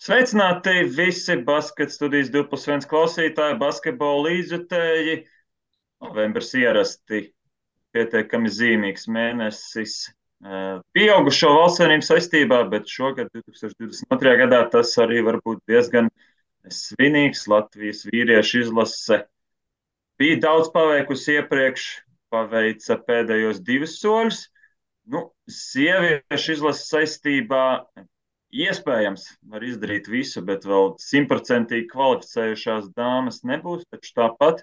Sveicināti visi basketa studijas 2+1 klausītāji, basketbola līdzjutēji. Novembris ierasti pietiekami zīmīgs mēnesis pieaugušo valstsvienību saistībā, bet šogad, 2022. gadā, tas arī var būt diezgan svinīgs. Latvijas vīriešu izlase bija daudz paveikusi iepriekš, paveica pēdējos 2 soļus. Sieviešu izlases saistībā iespējams var izdarīt visu, bet vēl 100% kvalificējušās dāmas nebūs. Taču tāpat,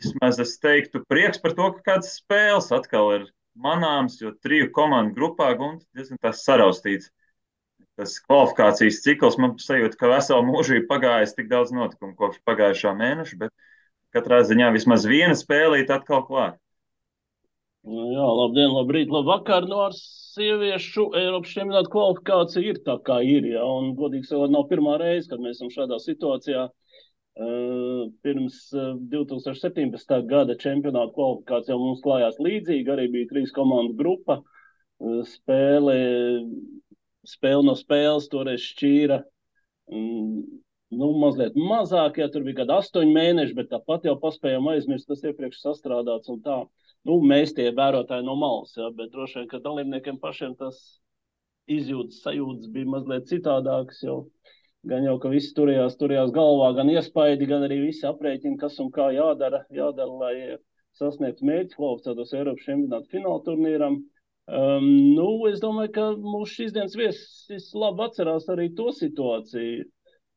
vismaz es teiktu, prieks par to, ka kādas spēles atkal ir manāms, jo 3 komandu grupā Gunta diezgan tās saraustīts. Tas kvalifikācijas cikls man sajūta, ka veselu mūžību pagājis tik daudz notikumu kopš pagājušā mēneša, bet katrā ziņā vismaz viena spēlīta atkal klāt. Jā, labdien, labrīt, labvakar. Ar sieviešu Eiropas čempionāta kvalifikācija ir tā, kā ir. Ja? Un, godīgi sakot, nav pirmā reize, kad mēs esam šādā situācijā. Pirms 2017. gada čempionāta kvalifikācijā mums klājās līdzīgi. Arī bija 3 komandu grupa. Spēle no spēles toreiz šķīra mazliet mazāk. Ja? Tur bija kādi 8 mēneši, bet tāpat jau paspējām aizmirst, tas iepriekš sastrādāts un tā. Mēs tie vērotāji no malas, ja, bet droši vien, ka dalībniekiem pašiem tas izjūtas, sajūtas bija mazliet citādākas, gan jau, ka visi turējās galvā, gan iespaidi, gan arī visi aprēķini, kas un kā jādara, lai sasniegtu mērķi kvalificētos Eiropas čempionāta fināla turnīram. Es domāju, ka mūsu šīs dienas viesis labi atcerās arī to situāciju.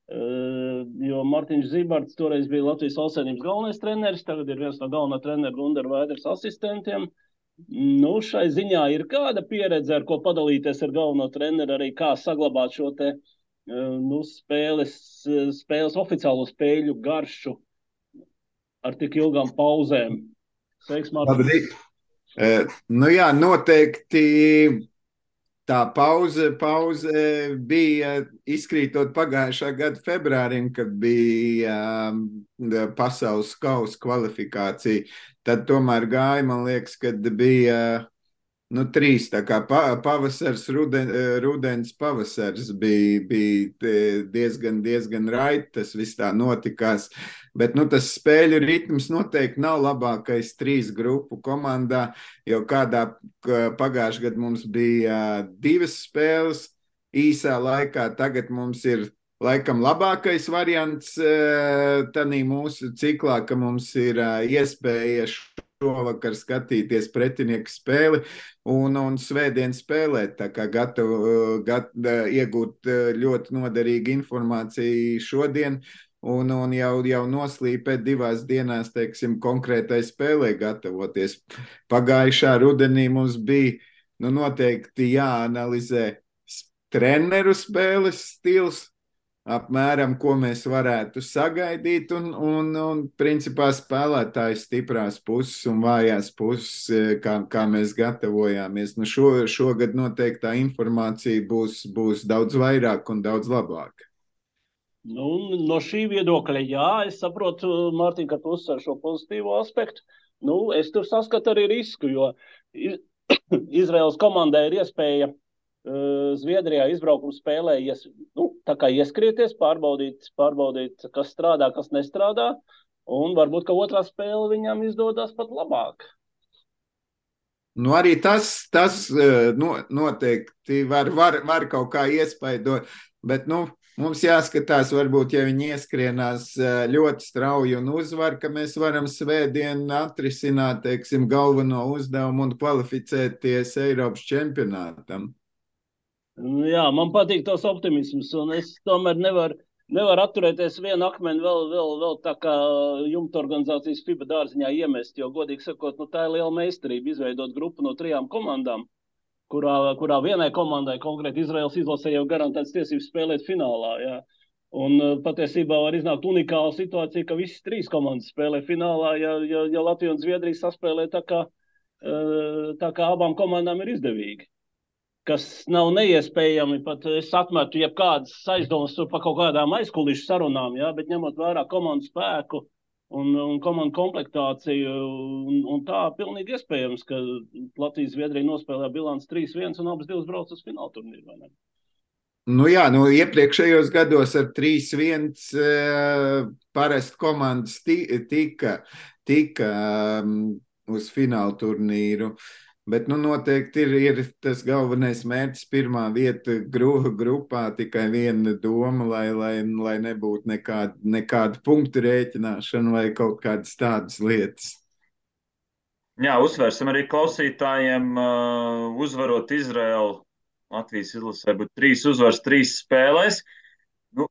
Jo Martiņš Zibarts toreiz bija Latvijas valstsvienības galvenais treneris, tagad ir viens no galvenā trenera Gundara Vaiders asistentiem. Šai ziņā ir kāda pieredze, ar ko padalīties ar galveno treneru, arī kā saglabāt šo te spēles oficiālo spēļu garšu ar tik ilgām pauzēm. Sveiks, Martiņš. Jā, noteikti. Tā pauze bija izkrītot pagājušā gada februārim, kad bija pasaules kausa kvalifikācija. Tad tomēr gāja, man liekas, kad bija 3, tā kā pavasars, rudens pavasars bija diezgan raiti, tas viss tā notikās. Bet tas spēļu ritms noteikti nav labākais 3 grupu komandā, jo kādā pagājušajā gadā mums bija 2 spēles īsā laikā, tagad mums ir laikam labākais variants tanī mūsu ciklā, ka mums ir iespēja šovakar skatīties pretinieku spēli un svētdien spēlēt, tā kā gatavu iegūt ļoti noderīgu informāciju šodien un jau noslīpēt 2 dienās, teiksim, konkrētai spēlē gatavoties. Pagājušā rudenī mums bija noteikti jāanalizē treneru spēles stils, apmēram, ko mēs varētu sagaidīt un principā spēlētāju stiprās puses un vājās puses, kā mēs gatavojāmies. Šogad noteikti tā informācija būs daudz vairāk un daudz labāka. No šī viedokļa, jā, es saprotu, Mārtiņ, ka tu uzsver šo pozitīvo aspektu. Es tur saskatu arī risku, jo Izraēlas komandai ir iespēja Zviedrijā izbraukuma spēlē tā kā ieskrieties, pārbaudīt, kas strādā, kas nestrādā, un varbūt, ka otrā spēle viņam izdodas pat labāk. Arī tas noteikti var kaut kā iespaidot, bet mums jāskatās, varbūt, ja viņi ieskrienās ļoti strauji un uzvar, ka mēs varam svētdien atrisināt, teiksim, galveno uzdevumu un kvalificēties Eiropas čempionātam. Jā, man patīk tos optimisms, un es tomēr nevaru atturēties vienu akmeni vēl tā kā jumta organizācijas FIBA dārziņā iemest, jo, godīgi sakot, tā ir liela meistarība izveidot grupu no 3 komandām, kurā vienai komandai, konkrēti Izraēlas izlasē, jau garantēts tiesības spēlēt finālā. Jā. Un patiesībā var iznākt unikāla situācija, ka visas 3 komandas spēlē finālā, ja Latvija un Zviedrija saspēlē tā kā abām komandām ir izdevīgi. Kas nav neiespējami, pat es atmetu jebkādas aizdomas par kaut kādām aizkulišu sarunām, ja, bet ņemot vērā komandu spēku un komandu komplektāciju, un tā pilnīgi iespējams, ka Latvijas Zviedrija nospēlē bilants 3-1 un abas 2 brauc uz fināla turnīru, vai ne? Nu jā, iepriekšējos gados ar 3-1 parasti komandas tika uz fināla turnīru. Bet noteikti ir tas galvenais mērķis, pirmā vieta grupā, tikai viena doma, lai nebūtu nekāda punktu rēķināšana vai kaut kādas tādas lietas. Jā, uzsvērsim arī klausītājiem, uzvarot Izraelu. Latvijas izlasē būtu 3 uzvaras, 3 spēlēs. Nu,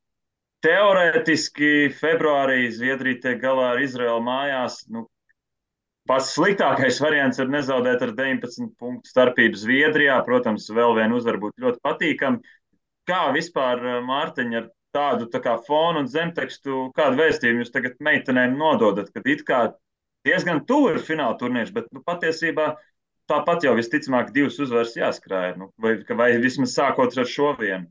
teorētiski februārī Zviedrija tiek galā ar Izraelu mājās. Pats sliktākais variants ir nezaudēt ar 19 punktu starpību Zviedrijā. Protams, vēl viena uzvara būtu ļoti patīkama. Kā vispār, Mārtiņ, ar tādu tā kā fonu un zemtekstu, kādu vēstījumu jūs tagad meitenēm nododat, kad it kā diezgan tuvu ir fināla turnīrs, bet patiesībā tāpat jau visticamāk 2 uzvaras jāskrāja, vai vismaz sākot ar šo vienu.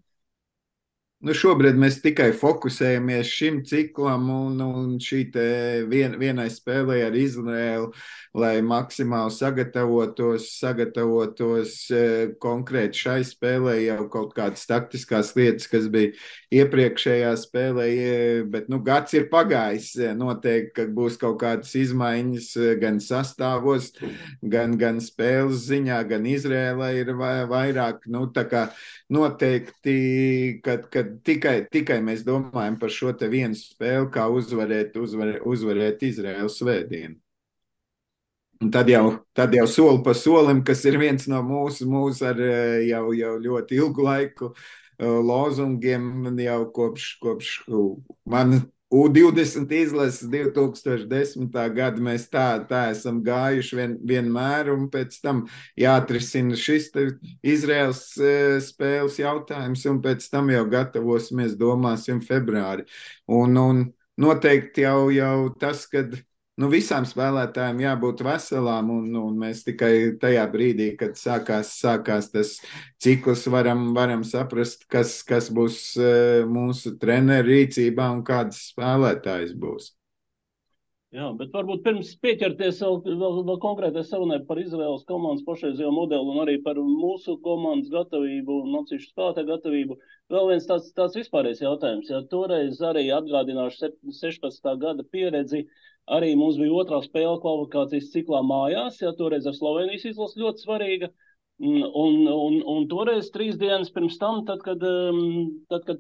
Šobrīd mēs tikai fokusējamies šim ciklam un šī vienai spēlē ar Izraēlu, lai maksimāli sagatavotos konkrēti šai spēlē, jau kaut kādas taktiskās lietas, kas bija iepriekšējā spēlē, bet gads ir pagājis. Noteikti, ka būs kaut kādas izmaiņas gan sastāvos, gan spēles ziņā, gan Izraēlai ir vairāk, tā kā noteikti, kad tikai mēs domājam par šo te vienu spēli, kā uzvarēt Izraēlu svētdienu. Un tad jau soli pa solim, kas ir viens no mūsu ar jau ļoti ilgu laiku lozungiem, jau kopš man U20 izlases 2010. Gada mēs tā esam gājuši vienmēr, un pēc tam jāatrisina šis Izraēlas spēles jautājums, un pēc tam jau gatavosimies, domāsim, februāri. Un noteikti jau tas, kad visām spēlētājiem jābūt veselām, un mēs tikai tajā brīdī, kad sākās tas cikls, varam saprast, kas būs mūsu treneru rīcībā un kādas spēlētājas būs. Jā, bet varbūt pirms pieķerties vēl konkrētai sarunai par Izraēlas komandas pašreizējo modeli un arī par mūsu komandas gatavību un atsevišķu spēlētāju gatavību. Vēl viens tāds vispārējais jautājums. Ja toreiz arī atgādināšu 16. gada pieredzi, arī mums bija otrā spēle kvalifikācijas ciklā mājās, ja toreiz ar Slovenijas izlasi ļoti svarīga. Un toreiz 3 dienas pirms tam, tad, kad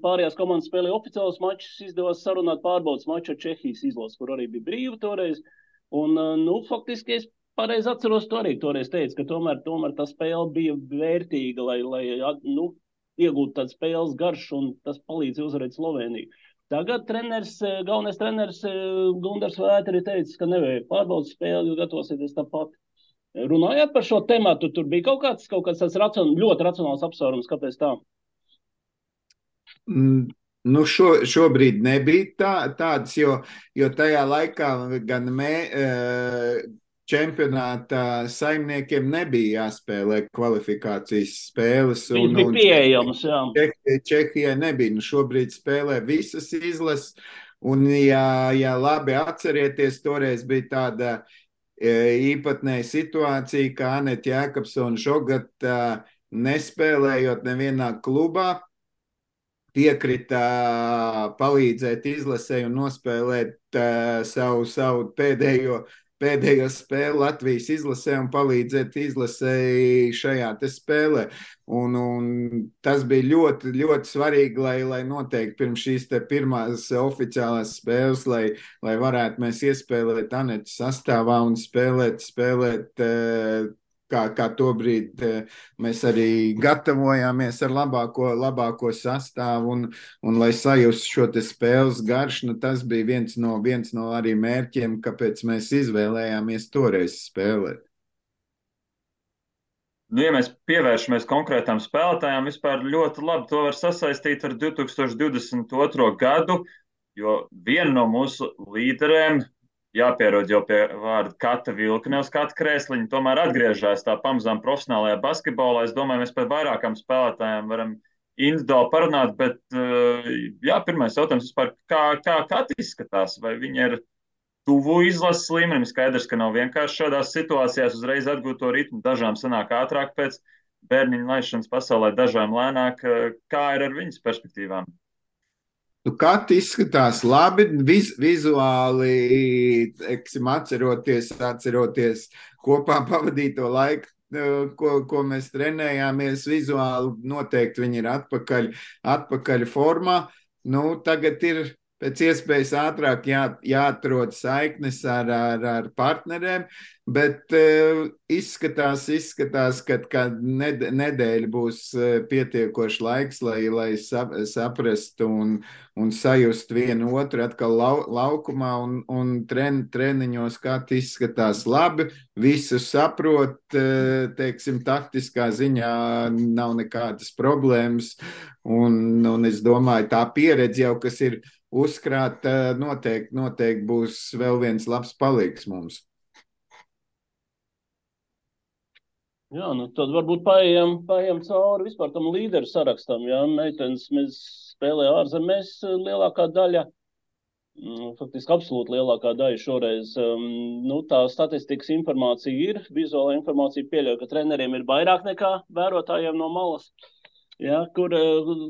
pārējās komandas spēlēja oficiālus mačus, izdevās sarunāt pārbaudas maču ar Čehijas izlasi, kur arī bija brīva toreiz. Un, faktiski es pareizi atceros, to arī toreiz teicu, ka tomēr tā spēle bija vērtīga, lai iegūtu tādu spēles garšu, un tas palīdz uzvarēt Sloveniju. Tagad galvenais treneris Gundars Vēteri teica, ka nevajag pārbaudas spēli, jo gatavosieties tāpat. Runājot par šo tematu, tur bija kaut kāds tāds ļoti racionāls apsvērums, kāpēc tā? Šobrīd nebija tāds, jo tajā laikā gan čempionāta saimniekiem nebija jāspēlē kvalifikācijas spēles. Viņas bija pieejamas, jā. Čehijai nebija. Šobrīd spēlē visas izlases, un ja labi atcerieties, toreiz bija tāda īpatnēja situācija, ka Anete Jēkabsone Žogata nespēlējot nevienā klubā, piekrita palīdzēt izlasē un nospēlēt savu pēdējo spēli Latvijas izlasē un palīdzēt izlasēji šajā te spēlē. Un tas bija ļoti, ļoti svarīgi, lai noteikti pirms šīs te pirmās oficiālās spēles, lai varētu mēs iespēlēt Anetes sastāvā un spēlēt kā to brīdi mēs arī gatavojāmies ar labāko sastāvu un lai sajustu šo te spēles garšu, tas bija viens no arī mērķiem, kāpēc mēs izvēlējāmies toreiz spēlēt. Ja mēs pievēršamies konkrētām spēlētājām, vispār ļoti labi to var sasaistīt ar 2022. gadu, jo viena no mūsu līderēm, jāpierod jau pie vārda Kata Vilkne uz Kata krēsliņa, tomēr atgriežas tā pamazām profesionālajā basketbolā. Es domāju, mēs par vairākām spēlētājām varam individuāli parunāt, bet pirmais jautājums vispār, kā Kata izskatās, vai viņa ir tuvu izlases līmenim? Skaidrs, ka nav vienkārši šādās situācijās uzreiz atgūt to ritmu, dažām sanāk ātrāk pēc bērniņu laišanas pasaulē dažām lēnāk. Kā ir ar viņas perspektīvām? Nu, Kati izskatās labi, vizuāli, teiksim, atceroties kopā pavadīto laiku, ko mēs trenējāmies. Vizuāli noteikti viņi ir atpakaļ formā. Nu, tagad ir pēc iespējas ātrāk jāatrod saiknes ar partneriem, bet izskatās, ka nedēļa būs pietiekoši laiks, lai saprastu un sajust vienu otru atkal laukumā un treniņos, kā izskatās labi, visu saprot, teiksim, taktiskā ziņā nav nekādas problēmas, un es domāju, tā pieredze jau, kas ir uzkrāta, noteikti būs vēl viens labs palīgs mums. Jā, nu tad varbūt paejam cauri vispār tam līderu sarakstam. Jā, meitenes mēs spēlē ārzemēs lielākā daļa, faktiski absolūti lielākā daļa šoreiz. Nu, tā statistikas informācija ir, vizuāla informācija pieļauj, ka treneriem ir vairāk nekā vērotājiem no malas. Jā,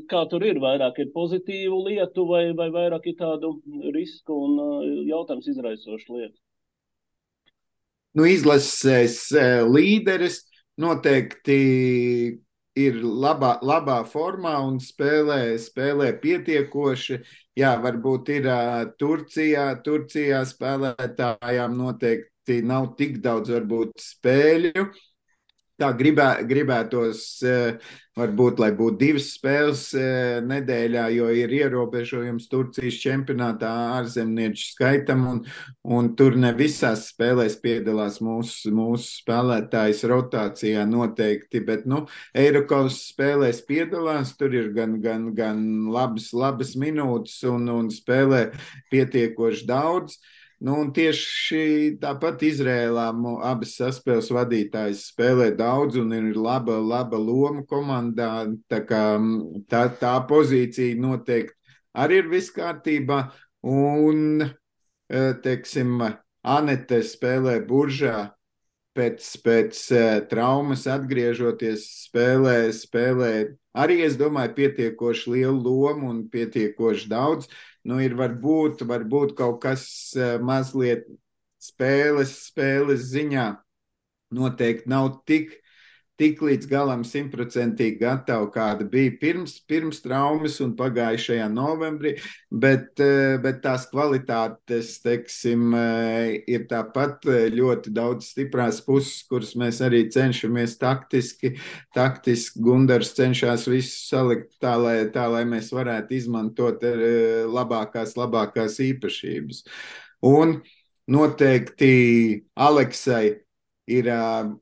kā tur ir? Vairāk ir pozitīvu lietu vai vairāk ir tādu risku un jautājums izraisošu lietu? Nu, izlases līderis noteikti ir labā formā un spēlē pietiekoši. Jā, varbūt ir Turcijā spēlētājām noteikti nav tik daudz varbūt spēļu. Tā gribētos, varbūt, lai būtu 2 spēles nedēļā, jo ir ierobežojums Turcijas čempionātā ārzemnieču skaitam, un tur ne visās spēlēs piedalās mūsu spēlētājs rotācijā noteikti, bet, Eirokaus spēlēs piedalās, tur ir gan labas minūtes un spēlē pietiekoši daudz. Un tieši tāpat Izrēlā abas saspēles vadītājas spēlē daudz un ir laba loma komandā. Tā pozīcija noteikti arī ir viss kārtībā. Un, teiksim, Anete spēlē Buržā. Pēc traumas atgriežoties spēlē arī, es domāju, pietiekoši lielu lomu un pietiekoši daudz. Ir varbūt kaut kas mazliet spēles ziņā noteikti nav tik līdz galam 100% gatava, kāda bija pirms traumas un pagājušajā novembrī, bet tās kvalitātes, teiksim, ir tāpat ļoti daudz stiprās puses, kuras mēs arī cenšamies taktiski. Gundars cenšas visu salikt tā, lai mēs varētu izmantot labākās īpašības. Un noteikti Aleksai ir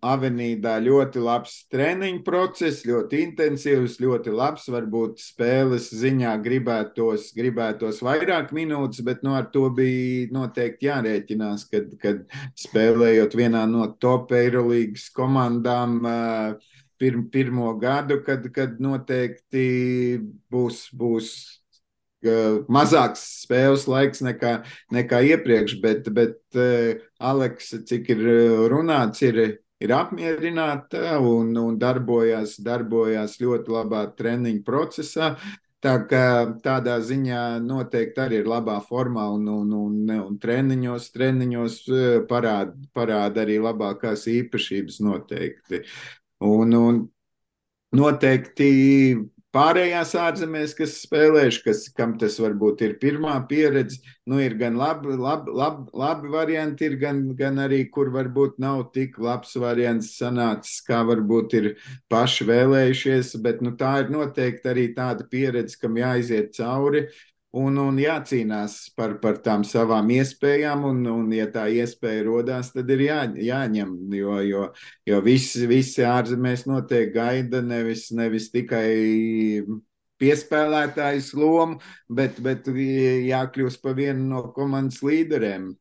Avenīdā ļoti labs treniņu process, ļoti intensīvs, ļoti labs. Varbūt spēles ziņā gribētos vairāk minūtes, bet ar to bija noteikti jārēķinās, kad spēlējot vienā no top Eirolīgas komandām pirmo gadu, kad noteikti būs mazāks spēles laiks nekā iepriekš, bet Aleksa, cik ir runāts, ir apmierināta un darbojās ļoti labā treniņu procesā. Tā kā tādā ziņā noteikti arī ir labā formā un treniņos parāda arī labākās īpašības noteikti. Un noteikti pārējās ārzemēs, kas spēlējuši, kam tas varbūt ir pirmā pieredze, ir gan labi varianti, ir gan arī, kur varbūt nav tik labs variants sanācis, kā varbūt ir paši vēlējušies, bet tā ir noteikti arī tāda pieredze, kam jāiziet cauri un jācīnās par tām savām iespējām, un ja tā iespēja rodās, tad ir jāņem, jo visi ārzemēs noteikti gaida nevis tikai piespēlētājs lomu, bet jākļūst par vienu no komandas līderiem.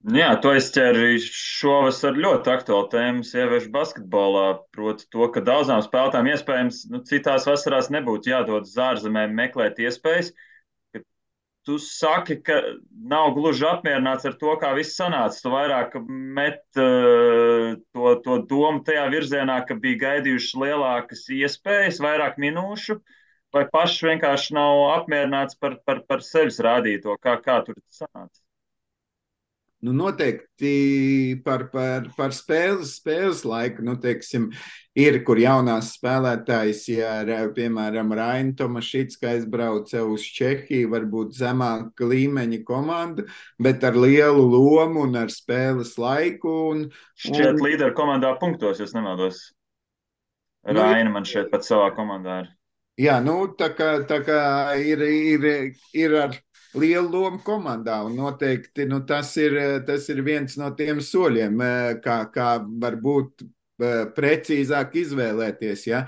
Jā, tu aizķēri šovasar ļoti aktuālu tēmu sieviešu basketbolā, proti to, ka daudzām spēlētājām iespējams citās vasarās nebūtu jādod uz ārzemēm meklēt iespējas, ka tu saki, ka nav gluži apmierināts ar to, kā viss sanāca. Tu vairāk met to domu tajā virzienā, ka bija gaidījušas lielākas iespējas, vairāk minūšu, vai pašs vienkārši nav apmierināts par sevis rādīto, kā tur sanāca. Nu, noteikti par spēles laiku, nu, teiksim, ir, kur jaunās spēlētājs, ja, piemēram, Raina Tomašicka aizbrauca uz Čehiju, varbūt zemāka līmeņa komanda, bet ar lielu lomu un ar spēles laiku. Šķiet līderu komandā punktos, ja nemaldos. Raina man šeit pat savā komandā ir. Jā, nu, tā kā ir ar lielu lomu komandā, un noteikti tas ir viens no tiem soļiem, kā varbūt precīzāk izvēlēties. Ja?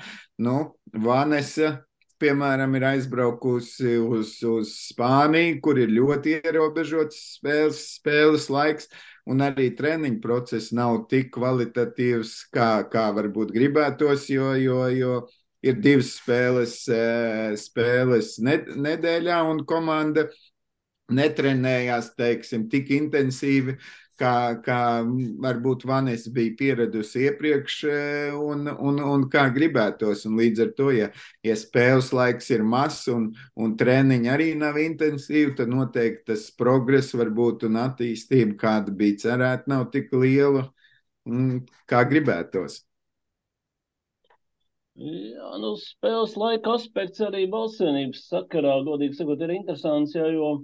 Nu, Vanesa, piemēram, ir aizbraukusi uz Spāniju, kur ir ļoti ierobežots spēles laiks, un arī treniņu process nav tik kvalitatīvs, kā varbūt gribētos, jo ir 2 spēles nedēļā, un komanda netrenējās, teiksim, tik intensīvi, kā varbūt Vanesa bija pieradusi iepriekš un kā gribētos. Un līdz ar to, ja spēles laiks ir mazs un treniņi arī nav intensīvi, tad noteikti tas progress varbūt un attīstība, kāda bija cerēta, nav tik liela, kā gribētos. Jā, nu, spēles laika aspekts arī balsvienības sakarā, godīgi sakot, ir interesants, jo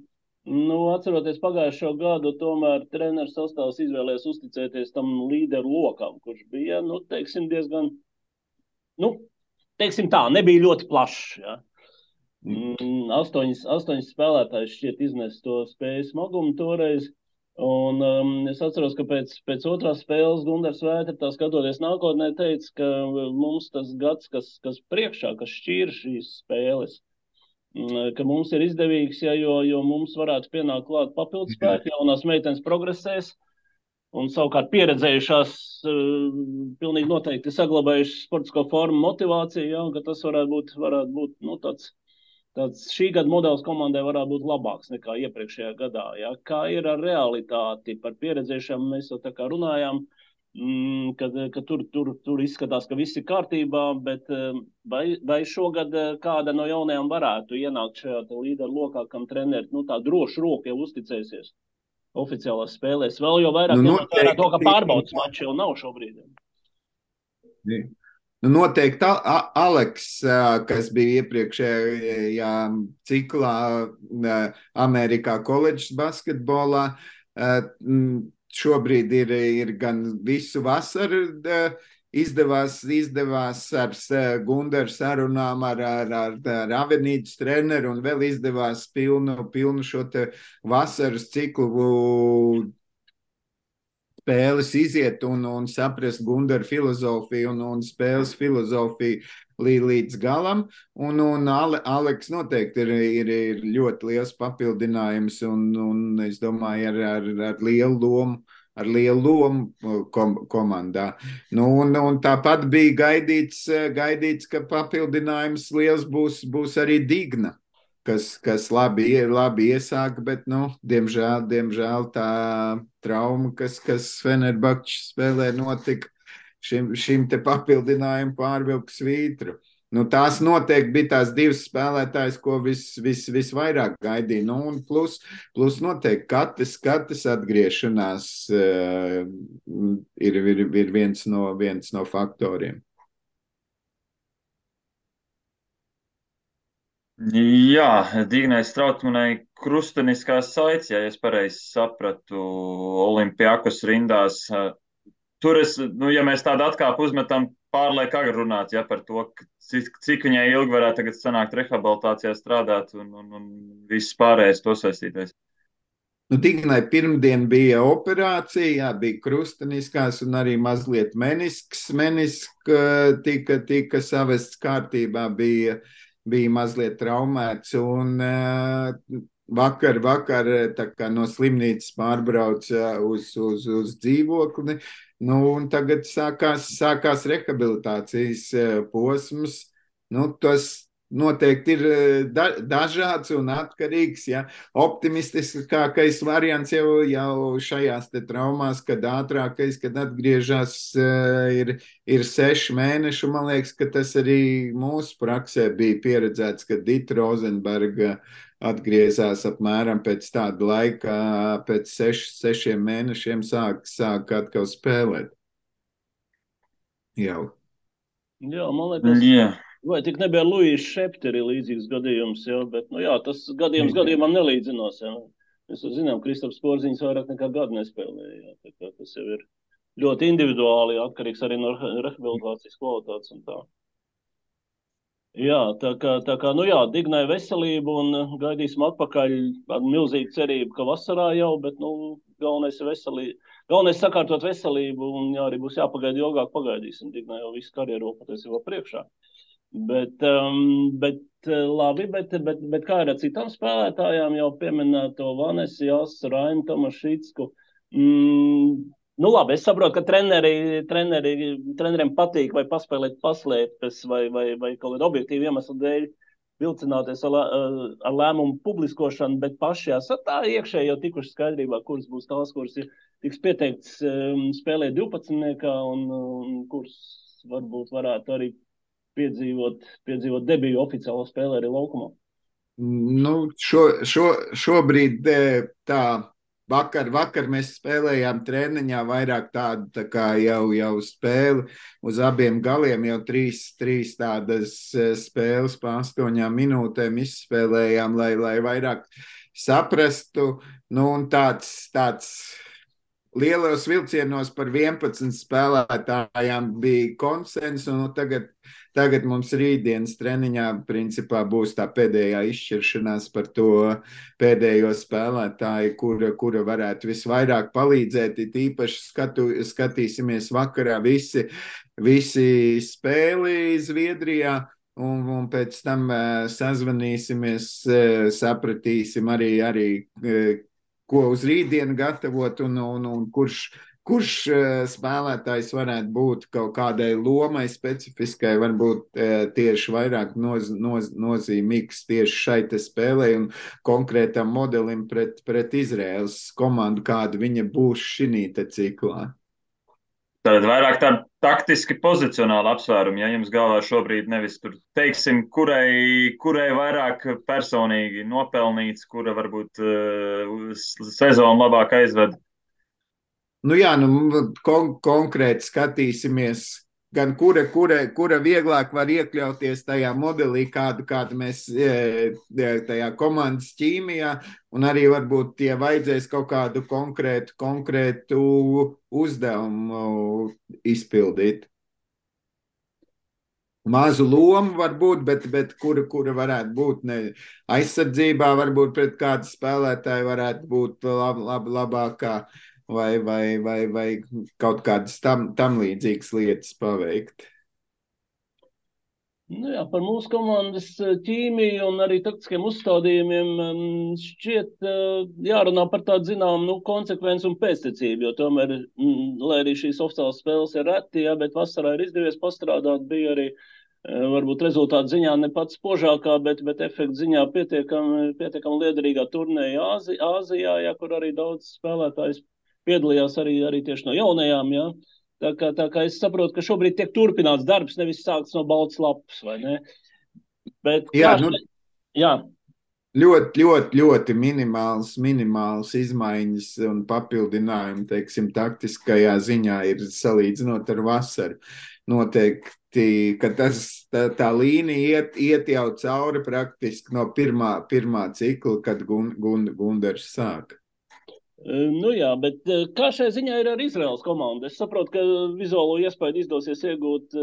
atceroties pagājušo gadu, tomēr treneris sastāvs izvēlējās uzticēties tam līderu lokam, kurš bija, teiksim, diezgan, teiksim tā, nebija ļoti plašs. Ja? 8 spēlētājs šķiet iznes to spēju smagumu toreiz. Un es atceros, ka pēc otrās spēles Gundars Vētra, skatoties nākotnē, teica, ka mums tas gads, kas priekšā, kas šķīra šīs spēles, ka mums ir izdevīgs, jo mums varētu pienākt klāt papildus spēki, jaunās meitenes progresēs, un savukārt pieredzējušās pilnīgi noteikti saglabājušas sportisko formu motivāciju, ja, un ka tas varētu būt tāds šī gada modelis komandai varētu būt labāks nekā iepriekšējā gadā. Ja. Kā ir ar realitāti par pieredzējušām, mēs jau tā kā runājām, ka tur izskatās, ka viss ir kārtībā, bet vai šogad kāda no jaunajām varētu ienākt šajā līderu lokā, kam treneri tā droši roku jau uzticēsies oficiālās spēlēs? Vēl jau vairāk ņemot vērā to, ka pārbaudas mači jau nav šobrīd. Noteikti Aleks, kas bija iepriekšējā ciklā Amerikā koledžas basketbolā, šobrīd ir gan visu vasaru izdevās ar Gundaru sarunām ar Avenītas treneru, un vēl izdevās pilnu šo te vasaras ciklu spēles iziet un saprast Gundaru filozofiju un spēles filozofiju līdz galam. Un Aleks noteikti ir ļoti liels papildinājums un es domāju ar lielu lomu komandā. Un tāpat bija gaidīts, ka papildinājums liels būs arī Digna, kas labi iesāka, bet, diemžēl tā trauma, kas Fenerbahčes spēlē notika, šim te papildinājumu pārvilka svītru. Tās noteikti bija tās 2 spēlētājas, ko visvairāk gaidīja. Un plus noteikti katrs atgriešanās ir viens no faktoriem. Jā, Dignai Strautmanai krusteniskās saites, ja es pareizi sapratu, Olimpiakos rindās. Tur ja mēs tādu atkāpu uzmetam, pārliek agri runāt, ja, par to, cik viņai ilgi varētu tagad sanākt rehabilitācijā strādāt un viss pārējais to saistītais. Dignai pirmdien bija operācija, bija krusteniskās un arī mazliet menisks tika savests kārtībā, bija mazliet traumēts, un vakar tā kā no slimnīcas pārbrauca uz dzīvokli, un tagad sākās rehabilitācijas posms. Tas noteikti ir dažāds un atkarīgs. Ja. Optimistiskākais variants jau šajās te traumās, kad ātrākais, kad atgriežas, ir 6 mēneši. Man liekas, ka tas arī mūsu praksē bija pieredzēts, kad Dita Rozenberga atgriezās apmēram pēc tāda laika, pēc 6 mēnešiem sāk atkal spēlēt. Jau. Jā, man liekas, Jā. vai tik nebija Luīs Šepteri līdzīgs gadījums, jā, bet, nu jā, tas gadījumam nelīdzinās, jā. Mēs zinām, Kristaps Porziņš vairāk nekā gadu nespēlēja, jā, tā kā tas jau ir ļoti individuāli, atkarīgs arī no rehabilitācijas kvalitātes un tā. Jā, tā kā, nu jā, Dignai veselību un gaidīsim atpakaļ ar milzīgu cerību, ka vasarā jau, bet, nu, galvenais ir veselība. Galvenais sakārtot veselību un jā, arī būs jāpagaida ilgāk, pagaidīsim. Dignai jau visu karjeru patiesībā priekšā. Bet labi, bet kā ir ar citām spēlētājām, jau pieminēto Vanesi, Jāsu, Rainu Tomašicku. Nu labi, es saprotu, ka treneriem patīk vai paspēlēt paslēpes vai kaut kādu objektīvu iemeslu dēļ vilcināties ar lēmumu publiskošanu, bet paši esat tā iekšēji jau tikuši skaidrībā, kuras būs tās, kuras tiks pieteikts spēlēt 12. un kuras varbūt varētu arī piedzīvot debiju oficiālo spēlē arī laukumā. Nu, šobrīd tā. Vakar mēs spēlējām treniņā vairāk tādu tā kā jau spēli uz abiem galiem, jau trīs tādas spēles pa 8 minūtēm izspēlējām, lai vairāk saprastu. Nu, un tāds lielos vilcienos par 11 spēlētājām bija konsens, un tagad mums rītdienas treniņā principā būs tā pēdējā izšķiršanās par to pēdējo spēlētāju, kura varētu visvairāk palīdzēt. Īpaši skatīsimies vakarā visi spēli Zviedrijā, un pēc tam sazvanīsimies, sapratīsim arī ko uz rītdienu gatavot un kurš spēlētājs varētu būt kaut kādai lomai specifiskai, varbūt tieši vairāk nozīmīgs tieši šai te spēlē un konkrētam modelim pret Izraēlas komandu, kāda viņa būs šī te ciklā. Tad vairāk tādi taktiski pozicionāli apsvērumi, ja jums galvā šobrīd nevis tur teiksim, kurai vairāk personīgi nopelnīts, kura varbūt sezonu labāk aizved. Nu jā, konkrēti skatīsimies, gan kura vieglāk var iekļauties tajā modelī, kādu mēs tajā komandas ķīmijā, un arī varbūt tie vajadzēs kaut kādu konkrētu uzdevumu izpildīt. Mazu lomu varbūt, bet kura varētu būt aizsardzībā, varbūt pret kādu spēlētāju varētu būt labākā. Vai kaut kādas tam līdzīgas lietas paveikt. Nu jā, par mūsu komandas ķīmiju un arī taktiskiem uzstādījumiem šķiet jārunā par tādu zināmu konsekvenci un pēctecību, jo tomēr, lai arī šīs oficiālās spēles ir reti, jā, bet vasarā ir izdevies pastrādāt, bija arī varbūt rezultātu ziņā ne pats spožākā, bet efektu ziņā pietiekam liederīgā turnēja Āzijā, jā, kur arī daudz spēlētājs piedalījās arī tieši no jaunajām, jā. Tā kā es saprotu, ka šobrīd tiek turpināts darbs, nevis sākts no baltas lapas, vai ne? Bet, jā, jā. Ļoti minimāls izmaiņas un papildinājumi, teiksim, taktiskajā ziņā ir salīdzinot ar vasaru. Noteikti, ka tā līnija iet jau cauri praktiski no pirmā cikla, kad Gundars sāka. Nu jā, bet kā šai ziņā ir ar Izraēlas komandu? Es saprotu, ka vizuālo iespēju izdosies iegūt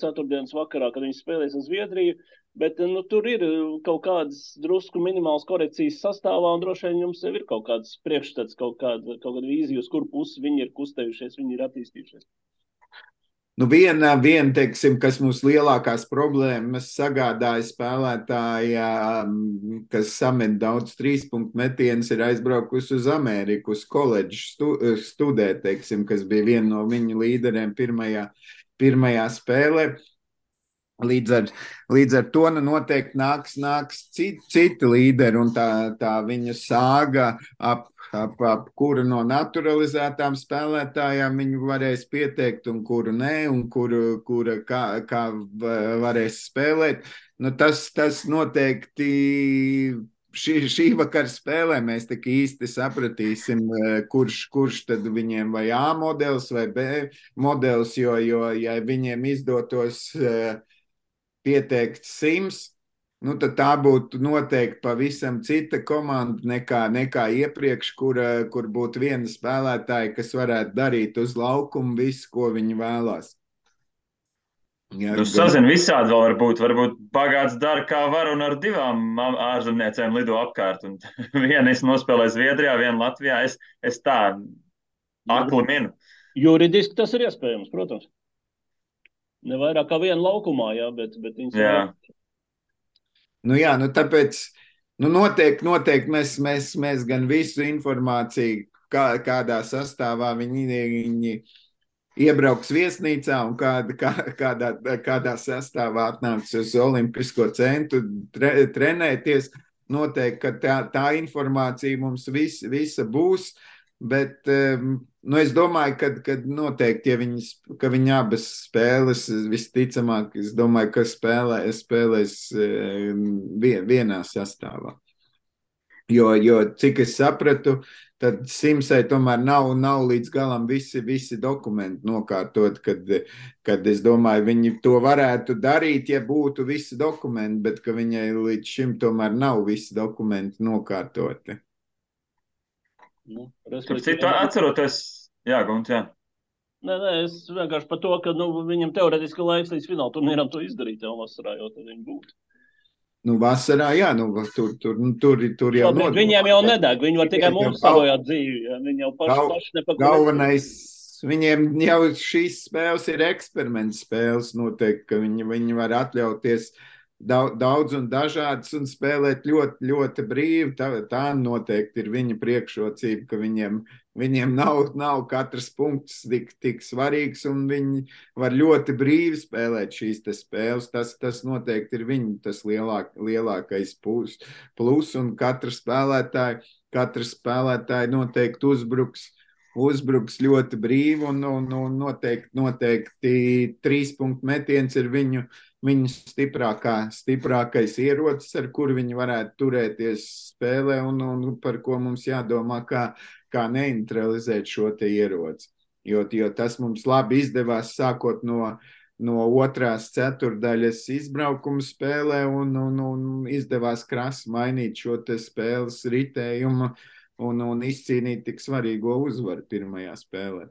ceturtdienas vakarā, kad viņi spēlēs uz Zviedriju, bet tur ir kaut kādas drusku minimālas korekcijas sastāvā, un droši vien jums jau ir kaut kāds priekšstats, kaut kāda vīzija, uz kur pusi viņi ir kustējušies, viņi ir attīstījušies. Nu, viena, teiksim, kas mums lielākās problēmas sagādāja spēlētāja, kas samet daudz trīspunktu metienus, ir aizbraukusi uz Ameriku, uz koledžu studēt, teiksim, kas bija viena no viņu līderiem pirmajā spēlē. Līdz ar to noteikti nāks citi līderi, un tā viņa sāga ap kuru no naturalizētām spēlētājām viņu varēs pieteikt, un kuru nē, un kura kā varēs spēlēt. Nu, tas noteikti šī vakara spēlē mēs tik īsti sapratīsim, kurš tad viņiem vai A modelis vai B modelis, jo ja viņiem izdotos pieteikt 100, nu tad tā būtu noteikti pavisam cita komanda nekā iepriekš, kur būtu viena spēlētāja, kas varētu darīt uz laukumu visu, ko viņi vēlās. Ja, sazin visādi vēl varbūt bagāts dara kā var un ar 2 ārzemniecēm lido apkārt. Un viena es nospēlēju Zviedrijā, viena Latvijā. Es tā akli minu. Juridiski tas ir iespējams, protams. Ne vairāk kā viena laukumā, jā, bet viņas jā. Nu jā, nu tāpēc noteikti mēs gan visu informāciju, kādā sastāvā viņi iebrauks viesnīcā un kādā sastāvā atnāks uz Olimpisko centru trenēties. Noteikti, ka tā informācija mums visa būs, bet es domāju, ka noteikti, ja viņi abas spēles visticamāk, es domāju, ka spēlēs vienā sastāvā. Jo cik es sapratu, tad Simsai tomēr nav līdz galam visi dokumenti nokārtot, kad es domāju, viņi to varētu darīt, ja būtu visi dokumenti, bet ka viņai līdz šim tomēr nav visi dokumenti nokārtoti. Citu atceroties, jā, Gunts, jā. Nē, es vienkārši par to, ka viņam teoretiski laiks līdz fināla turnīram to izdarīt jau vasarā, jo tad viņi būtu. Nu, vasarā, jā, tur jau notiek. Viņiem jau nedeg, viņi var tikai mums sabojāt dzīvi, ja? Viņi jau paši nepakaļ. Galvenais, viņiem jau šīs spēles ir eksperiments spēles, noteikti, ka viņi var atļauties daudz un dažādas un spēlēt ļoti, ļoti brīvi. Tā noteikti ir viņa priekšrocība, ka viņiem nav katrs punkts tik svarīgs, un viņi var ļoti brīvi spēlēt šīs spēles. Tas noteikti ir tas lielākais plus, un katrs spēlētāji noteikti uzbruks ļoti brīvi, un noteikti 3 punktu metiens ir viņu stiprākais ierocis, ar kuru viņi varētu turēties spēlē, un par ko mums jādomā, kā neutralizēt šo te ieroci. Jo tas mums labi izdevās sākot no otrās ceturdaļas izbraukuma spēlē, un izdevās krasi mainīt šo te spēles ritējumu un izcīnīt tik svarīgo uzvaru pirmajā spēlē.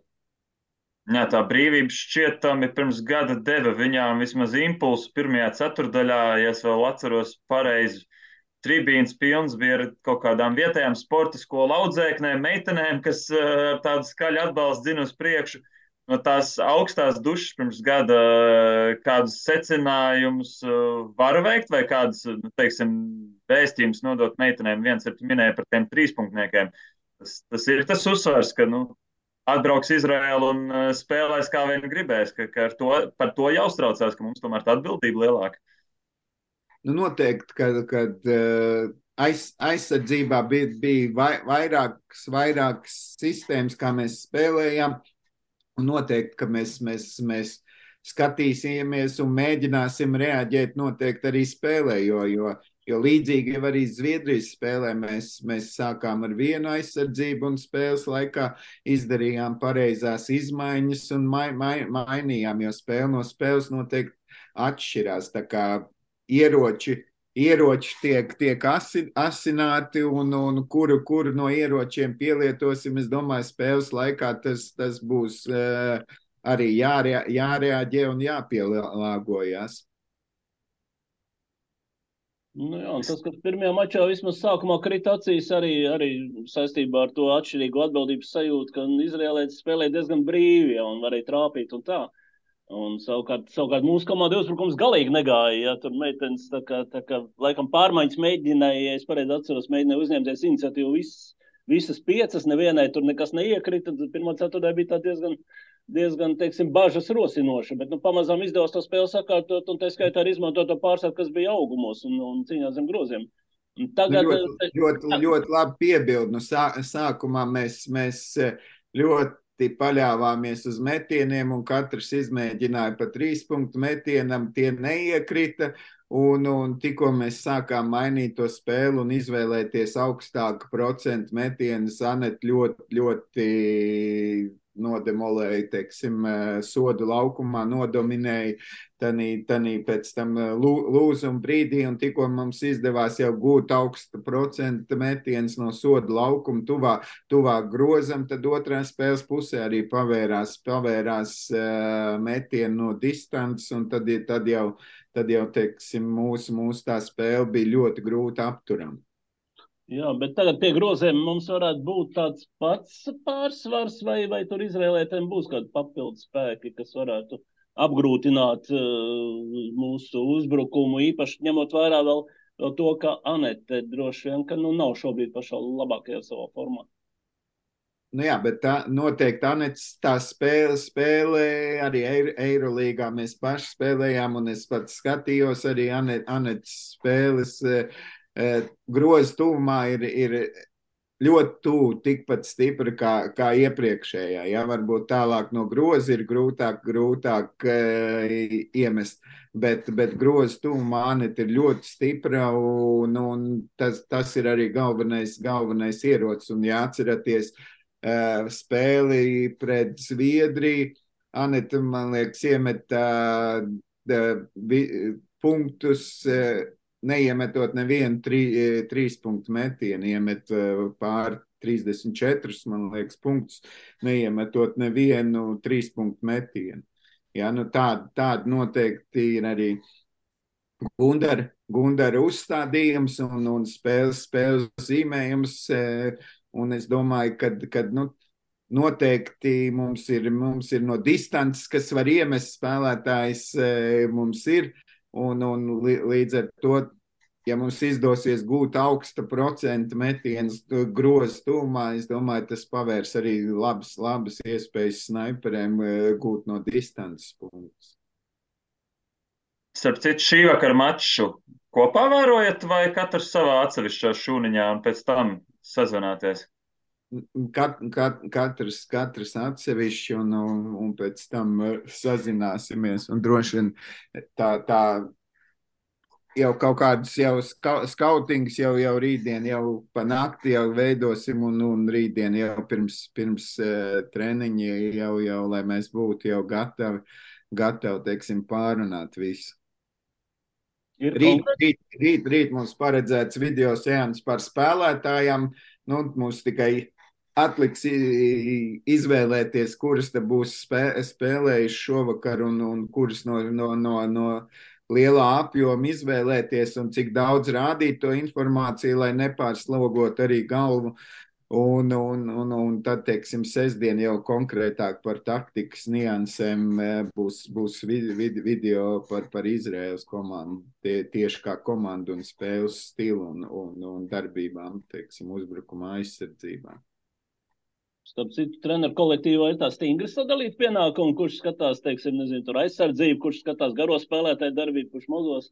Jā, tā brīvība šķietami pirms gada deva viņām vismaz impulsu pirmajā ceturdaļā, ja es vēl atceros pareizi. Tribīns pilns bija ar kaut kādām vietējām sporta skolu audzēknēm, meitenēm, kas tādu skaļu atbalstu dzina uz priekšu. No tās augstās dušas pirms gada kādus secinājumus var veikt vai kādus, teiksim, vēstījumus nodot meitenēm. Viens ir minēja par tiem 3-punktniekiem. Tas ir tas uzsvars, ka, atbrauks Izraēlu un spēlēs kā vien gribēs, ka par to jāuztraucās, ka mums tomēr tā atbildība lielāka. Noteikti, kad aizsardzībā bija vairākas sistēmas, kā mēs spēlējām, un noteikti, ka mēs skatīsimies un mēģināsim reaģēt noteikti arī spēlē, jo līdzīgi jau arī Zviedrijas spēlē mēs sākām ar vienu aizsardzību un spēles laikā izdarījām pareizās izmaiņas un mainījām, jo spēle no spēles noteikti atšķirās. Tā kā ieroči tiek asināti un kuru no ieročiem pielietosim, es domāju, spēles laikā tas būs arī jārēģē un jāpielāgojas. Jā, tas, ka pirmajā mačā vismaz sākumā krita acīs arī saistībā ar to atšķirīgu atbildības sajūtu, ka izrēlēts spēlē diezgan brīvi, ja, un varēja trāpīt un tā. Un savukārt mūsu komanda uzbrukums galīgi negāja, ja tur meitenes tā kā laikam pārmaiņas mēģināja, ja es pareizi atceros, mēģināja uzņemties iniciatīvu visas 5, nevienai tur nekas neiekrita, tad pirmā ceturtdaļa bija tā diezgan, teiksim, bažas rosinoša, bet, pamazām izdevās to spēli sakārtot, un tā skaitā arī izmantot to pārsvaru, kas bija augumos un cīņā zem groziem. Tagad, ļoti labi piebildi. Sākumā mēs ļoti paļāvāmies uz metieniem, un katrs izmēģināja pa 3 punktu metienam, tie neiekrita. Un tikko mēs sākām mainīt to spēli un izvēlēties augstāku procentu metienus, Anete ļoti nodemolēja, teiksim, sodu laukumā, nodominēja tanī pēc tam lūzuma brīdī, un tikko mums izdevās jau gūt augstu procentu metienus no sodu laukuma tuvāk grozam, tad otrā spēles pusē arī pavērās metieni no distances, un tad jau, teiksim, mūsu tā spēle bija ļoti grūti apturama. Jā, bet tagad pie groziem mums varētu būt tāds pats pārsvars, vai tur izvēlētiem būs kādi papildus spēki, kas varētu apgrūtināt mūsu uzbrukumu, īpaši ņemot vērā vēl to, ka Anete droši vien, ka nav šobrīd pašā labākajā savā formā. Nu jā, bet noteikti Anetes tā spēlē arī Eirolīgā mēs paši spēlējām, un es pats skatījos arī Anetes spēles. Groza tuvumā ir ļoti tuvu, tikpat stipra kā iepriekšējā. Ja? Varbūt tālāk no groza ir grūtāk iemest, bet groza tuvumā Anete ir ļoti stipra, un tas ir arī galvenais ierocis. Un jāatceraties spēli pret Zviedriju, Anete, man liekas, iemeta punktus, neiemetot nevienu 3 punktu metienu, iemet pār 34, man liekas, punktus, neiemetot nevienu 3 punktu metienu. Ja, tāda noteikti ir arī Gundara uzstādījums un spēles zīmējums, un es domāju, ka noteikti mums ir no distances, kas var iemest spēlētājs, mums ir. Un līdz ar to, ja mums izdosies gūt augsta procenta metienus groza tuvumā, es domāju, tas pavērs arī labas iespējas snaiperiem gūt no distances punktus. Starp citu, šī vakara maču kopā vērojat vai katrs savā atsevišķā šūniņā un pēc tam sazvanāties? Katrs atsevišķi un pēc tam sazināsimies, un droši vien tā jau kaut kādus skautings jau rītdien, jau pa nakti jau veidosim, un rītdien jau pirms treniņi jau, lai mēs būtu jau gatavi, teiksim, pārunāt visu. Rīt mums paredzēts video seans par spēlētājām, mums tikai atliks izvēlēties, kuras te būs spēlējuši šovakar un kuras no lielā apjoma izvēlēties un cik daudz rādīt to informāciju, lai nepārslogot arī galvu. Un tad, teiksim, sestdien jau konkrētāk par taktikas niansēm būs video par Izraēlas komandu, tieši kā komandu un spēles stilu un darbībām, teiksim, uzbrukuma aizsardzībā. Starp citu, treneru kolektīvā ir tā stingri sadalīt pienākumu, kurš skatās, teiksim, tur aizsardzību, kurš skatās garo spēlētāju darbību, kurš mazos,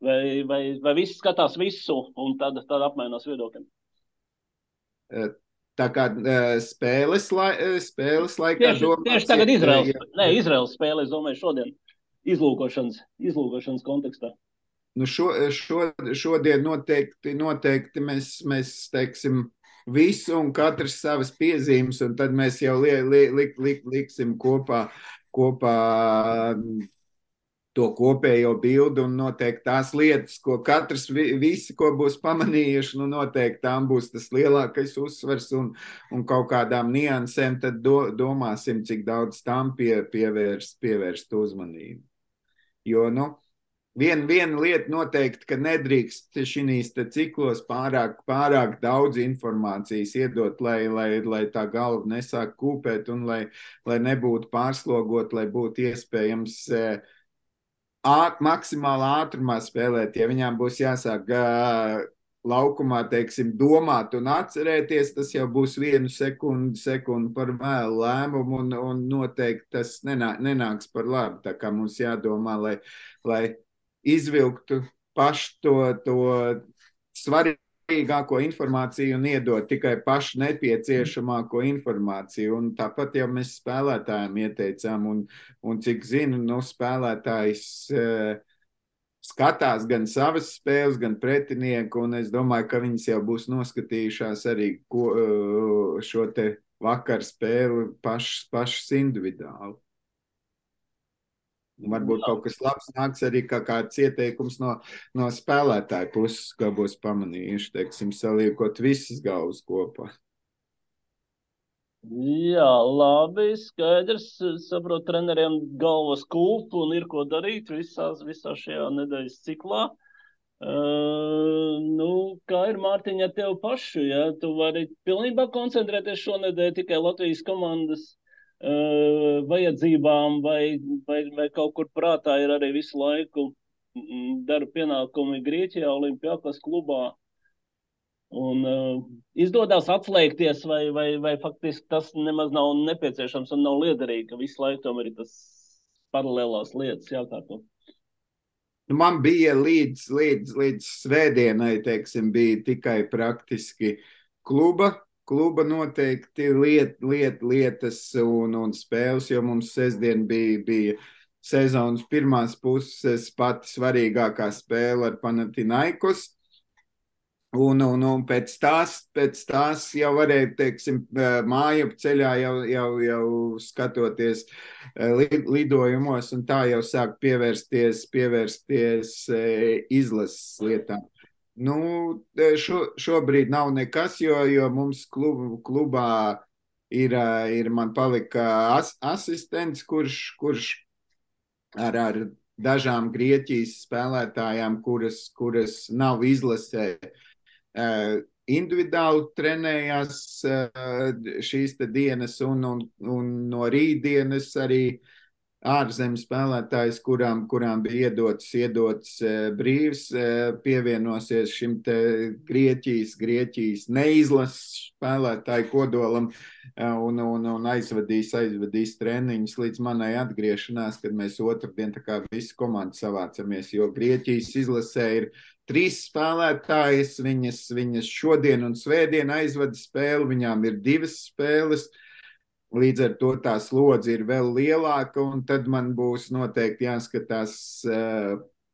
vai visi skatās visu un tad apmainās viedokļiem? Tā kā spēles laikā tieši tagad Izraēlas spēle, es domāju, šodien izlūkošanas kontekstā. Šodien noteikti mēs teiksim, visu un katrs savas piezīmes, un tad mēs jau liksim kopā to kopējo bildi, un noteikti tās lietas, ko katrs visi, ko būs pamanījuši, noteikti tām būs tas lielākais uzsvars un kaut kādām niansēm, tad domāsim, cik daudz tām pievērst uzmanību. Jo, Viena lieta noteikti, ka nedrīkst šīs ciklos pārāk daudz informācijas iedot, lai tā galva nesāk kūpēt un lai nebūtu pārslogot, lai būtu iespējams maksimālā ātrumā spēlēt. Ja viņām būs jāsāk laukumā, teiksim, domāt un atcerēties, tas jau būs 1 sekundi par vēlu lēmumu, un noteikti tas nenāks par labu. Tā kā mums jādomā, lai izvilktu pašu to svarīgāko informāciju un iedot tikai pašu nepieciešamāko informāciju. Un tāpat jau mēs spēlētājiem ieteicām, un cik zinu, spēlētājs skatās gan savas spēles, gan pretinieku, un es domāju, ka viņas jau būs noskatījušās arī šo te vakar spēli pašas individuāli. Un varbūt kaut kas labs nāks arī kā kāds ieteikums no spēlētāju puses, kā būs pamanījuši, teiksim, saliekot visas galvas kopā. Jā, labi, skaidrs. Saprotu, treneriem galvas kulp un ir ko darīt visā šajā nedēļas ciklā. Kā ir, Mārtiņ, ar tev pašu? Ja? Tu vari pilnībā koncentrēties šonedēļ tikai Latvijas komandas vajadzībām vai kaut kur prātā ir arī visu laiku darba pienākumi Grieķijā, Olimpiakos klubā. Un izdodas atslēgties, vai faktiski tas nemaz nav nepieciešams un nav liederīgi, ka visu laiku tomēr ir tas paralēlās lietas jākārto. Man bija līdz svētdienai, teiksim, bija tikai praktiski kluba noteikti lietas un spēles, jo mums sestdien bija sezonas pirmās puses pati svarīgākā spēle ar Panathinaikos. Un pēc tās jau varēja, teiksim, mājup ceļā jau skatoties lidojumos, un tā jau sāk pievērsties izlases lietām. Šobrīd nav nekas, jo mums klubā ir man palika asistents, kurš ar dažām Grieķijas spēlētājām, kuras nav izlasē, individuāli trenējās šīs te dienas, un no rītdienas arī ārzemes spēlētājs, kurām bija iedots brīvs, pievienosies šim te Grieķijas neizlases spēlētāju kodolam un aizvadīs treniņus līdz manai atgriešanās, kad mēs otrdien tā kā visi komandi savācamies, jo Grieķijas izlasē ir 3 spēlētājas, viņas šodien un svētdien aizvada spēli, viņām ir 2 spēles, līdz ar to tā slodze ir vēl lielāka, un tad man būs noteikti jāskatās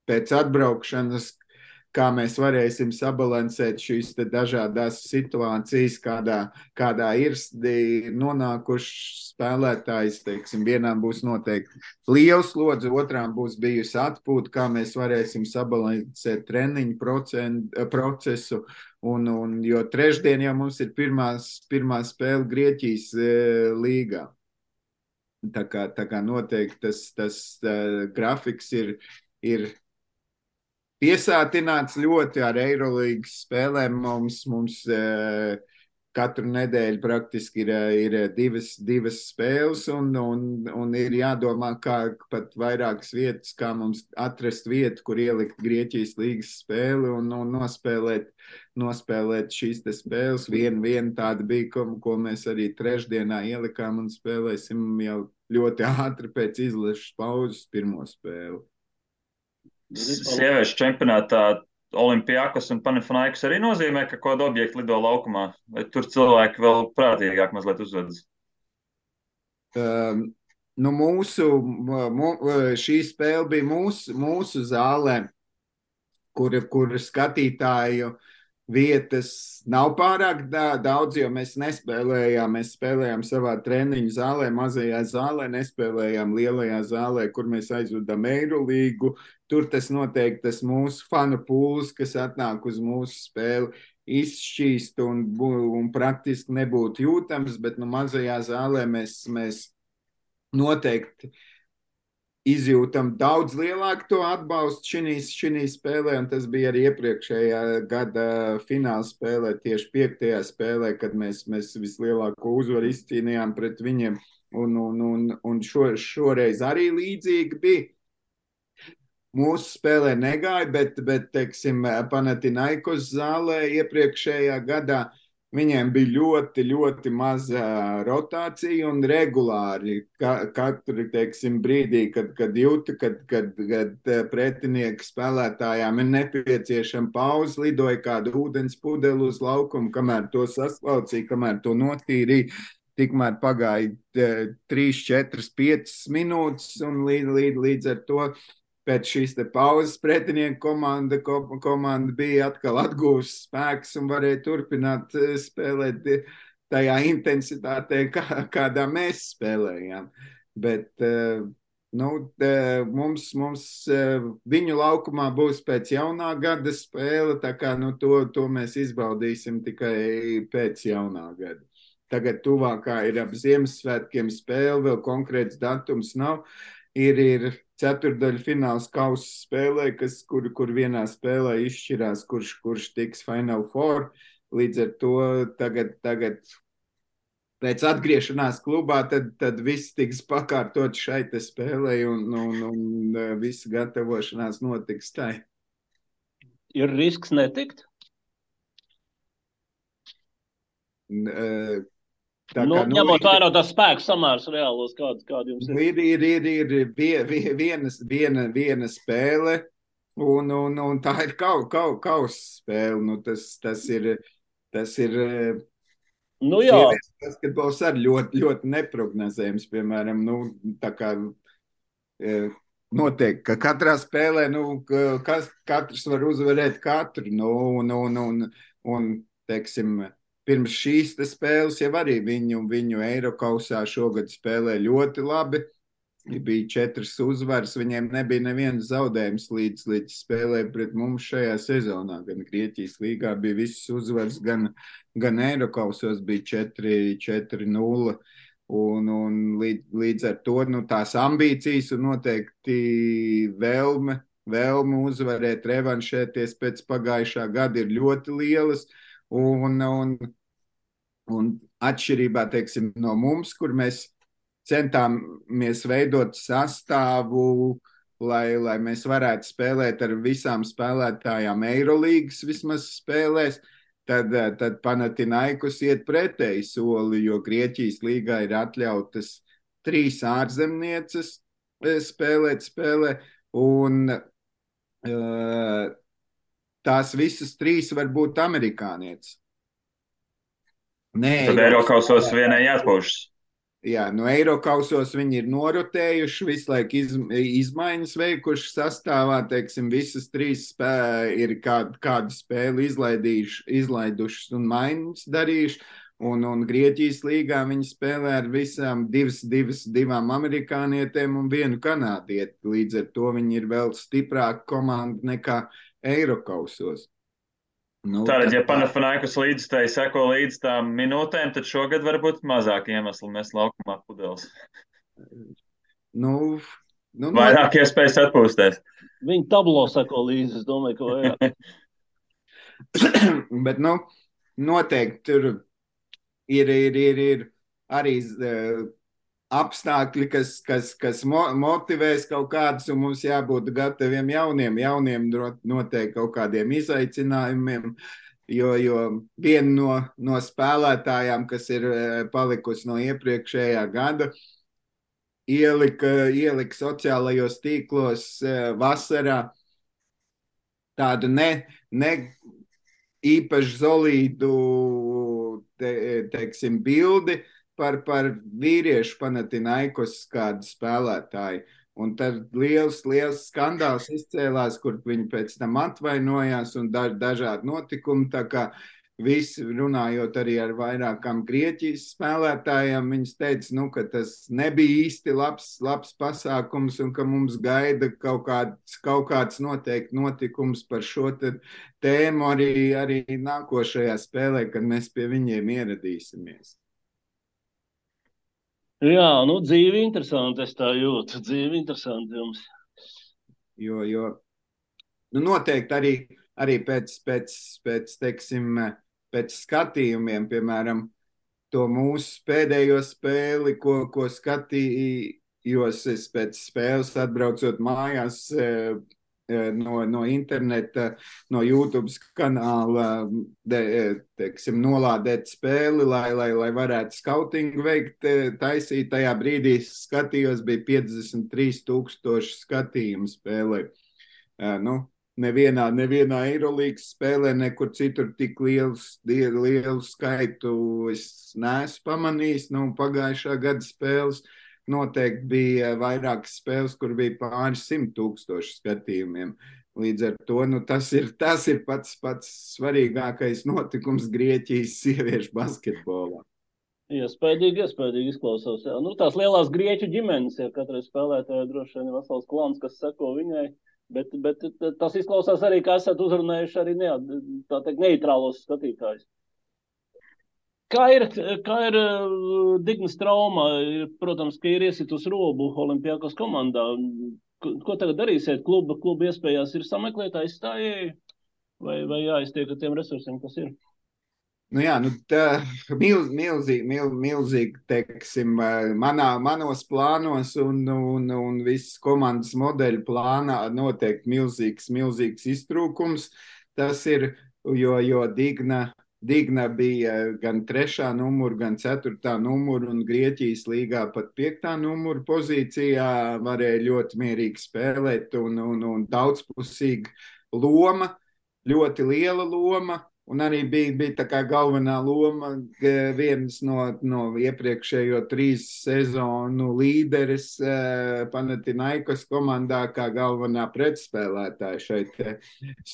pēc atbraukšanas, kā mēs varēsim sabalansēt šīs te dažādās situācijas, kādā ir nonākuši spēlētājs, teiksim, vienām būs noteikti liels slodze, otrām būs bijusi atpūta, kā mēs varēsim sabalansēt treniņu procesu, jo trešdien jau mums ir pirmā spēle Grieķijas līgā. Tā kā noteikti tas grafiks ir piesātināts ļoti ar Eirolīgas spēlēm. Mums katru nedēļu praktiski ir divas spēles, un ir jādomā, kā pat vairākas vietas, kā mums atrast vietu, kur ielikt Grieķijas līgas spēli un nospēlēt šīs te spēles. Viena tāda bija, ko mēs arī trešdienā ielikām un spēlēsim jau ļoti ātri pēc izlases pauzes pirmo spēli. Sieviešu čempionātā Olimpiakos un Panathinaikos arī nozīmē, ka kādu objektu lido laukumā, vai tur cilvēki vēl prātīgāk mazliet uzvedas? Šī spēle bija mūsu zālē, kur skatītāju vietas nav pārāk daudz, jo mēs nespēlējām. Mēs spēlējām savā treniņu zālē, mazajā zālē, nespēlējām lielajā zālē, kur mēs aizvedam Eirolīgu. Tur tas noteikti tas mūsu fanu pūls, kas atnāk uz mūsu spēli, izšķīst un praktiski nebūtu jūtams, bet mazajā zālē mēs noteikti izjūtam daudz lielāku to atbalstu šī spēlē, un tas bija arī iepriekšējā gada fināla spēlē, tieši 5. spēlē, kad mēs vislielāko uzvaru izcīnījām pret viņiem, un šoreiz arī līdzīgi bija. mūsu spēlē negāja, bet teiksim, Panathinaikos zālē iepriekšējā gadā viņiem bija ļoti, ļoti maza rotācija un regulāri katru, teiksim, brīdī, kad jūta, kad pretinieka spēlētājām ir nepieciešama pauze, lidoja kāda ūdens pudele uz laukumu, kamēr to saslaucīja, kamēr to notīrīja. Tikmēr pagāja 3, 4, 5 minūtes, un līdz ar to pēc šīs pauzes pretinieku komanda bija atkal atguvusi spēks un varēja turpināt spēlēt tajā intensitātē, kādā mēs spēlējām. Bet mums viņu laukumā būs pēc jaunā gada spēle, tā kā to mēs izbaudīsim tikai pēc jaunā gada. Tagad tuvākā ir ap Ziemassvētkiem spēle, vēl konkrēts datums nav. Ir ceturdaļu fināls kausa spēlē, kur vienā spēlē izšķirās, kurš tiks Final Four. Līdz ar to tagad pēc atgriešanās klubā, tad viss tiks pakārtot šai te spēlē un visa gatavošanās notiks tai. Ir risks netikt? Ņemot vērā tās spēku samērs reālos, kādi jums ir? Ir viena spēle, un tā ir kausa spēle. Tas ir sievietes basketbols arī ļoti, ļoti neprognozējams, piemēram, tā kā noteikti, ka katrā spēlē, katrs var uzvarēt katru, un teiksim, pirms šīs spēles jau arī viņu Eirokausā šogad spēlē ļoti labi. Bija 4 uzvaras, viņiem nebija neviens zaudējums līdz spēlē pret mums šajā sezonā. Gan Grieķijas līgā bija visas uzvaras, gan Eirokausos bija 4-0. Un līdz ar to tās ambīcijas un noteikti vēlme uzvarēt, revanšēties pēc pagājušā gada ir ļoti lielas. Un atšķirībā, teiksim, no mums, kur mēs centāmies veidot sastāvu, lai mēs varētu spēlēt ar visām spēlētājām Eirolīgas vismaz spēlēs, tad Panathinaikos iet pretēji soli, jo Grieķijas līgā ir atļautas 3 ārzemnieces spēlē, un tās visas 3 var būt amerikānietes. Tad Eirokausos vienai jāatpūšas. Jā, no Eirokausos viņi ir norotējuši, visu laiku izmaiņas veikuši sastāvā, teiksim, visas 3 ir kādu spēli izlaidušas un maiņas darījuši, un Grieķijas līgā viņi spēlē ar visām 2 amerikānietēm un 1 kanādieti, līdz ar to viņi ir vēl stiprāka komanda nekā Eirokausos. Tātad, ja Panathinaikos līdzstēji seko līdz tām minūtēm, tad šogad varbūt mazāk iemesli mēs laukumā pudeles. Vairāk iespējas atpūsties. Viņi tablo seko līdzi, es domāju, ka vajag. Bet, noteikti tur ir arī apstākļi, kas motivēs kaut kādus, un mums jābūt gataviem jauniem noteikti kaut kādiem izaicinājumiem, jo viena no spēlētājām, kas ir palikusi no iepriekšējā gada, ielika sociālajos tīklos vasarā tādu ne īpaši solīdu, teiksim, bildi par vīriešu Panathinaikos kādu spēlētāju. Un tad liels skandāls izcēlās, kur viņi pēc tam atvainojās un dažādi notikumi. Tā kā visi runājot arī ar vairākām Grieķijas spēlētājiem, viņas teica, ka tas nebija īsti labs pasākums un ka mums gaida kaut kāds noteikti notikums par šo tēmu arī nākošajā spēlē, kad mēs pie viņiem ieradīsimies. Jā, dzīve interesanti, es tā jūtu. Dzīve interesanti jums. Jo noteikti arī teiksim, pēc skatījumiem, piemēram, to mūsu pēdējo spēli, ko skatījos es pēc spēles atbraucot mājās, no interneta, no YouTube kanāla, teiksim, nolādēt spēli, lai varētu skautingu veikt, taisīt. Tajā brīdī skatījos, bija 53,000 skatījumu spēlē. Nu, nevienā Eirolīgas spēlē, nekur citur tik lielu skaitu es neesmu pamanījis. Nu, pagājušā gada spēles noteikti bija vairākas spēles, kur bija pāris 100,000 skatījumiem. Līdz ar to tas ir pats svarīgākais notikums Grieķijas sieviešu basketbolā. Iespējīgi izklausās. Jā. Nu, tās lielās grieķu ģimenes, ja katrai spēlētājai droši vien ir vesels klans, kas seko viņai, bet tas izklausās arī, ka esat uzrunājuši arī tā teikt neitrālos skatītājus. Kā ir Dignas trauma? Protams, ka ir iesitus robu Olimpiakos komandā. Ko tagad darīsiet? Kluba iespējās ir sameklēt aizstājēju vai jāiztiek ar tiem resursiem, kas ir? Nu jā, tā milzīgi, teiksim, manos plānos un visas komandas modeļu plānā noteikti milzīgs iztrūkums. Tas ir, jo Digna bija gan 3. numura, gan 4. numura, un Grieķijas līgā pat 5. numura pozīcijā varēja ļoti mierīgi spēlēt un daudzpusīga loma, ļoti liela loma. Un arī bija tā kā galvenā loma viens no iepriekšējo 3 sezonu līderis Panathinaikos komandā kā galvenā pretspēlētāja šeit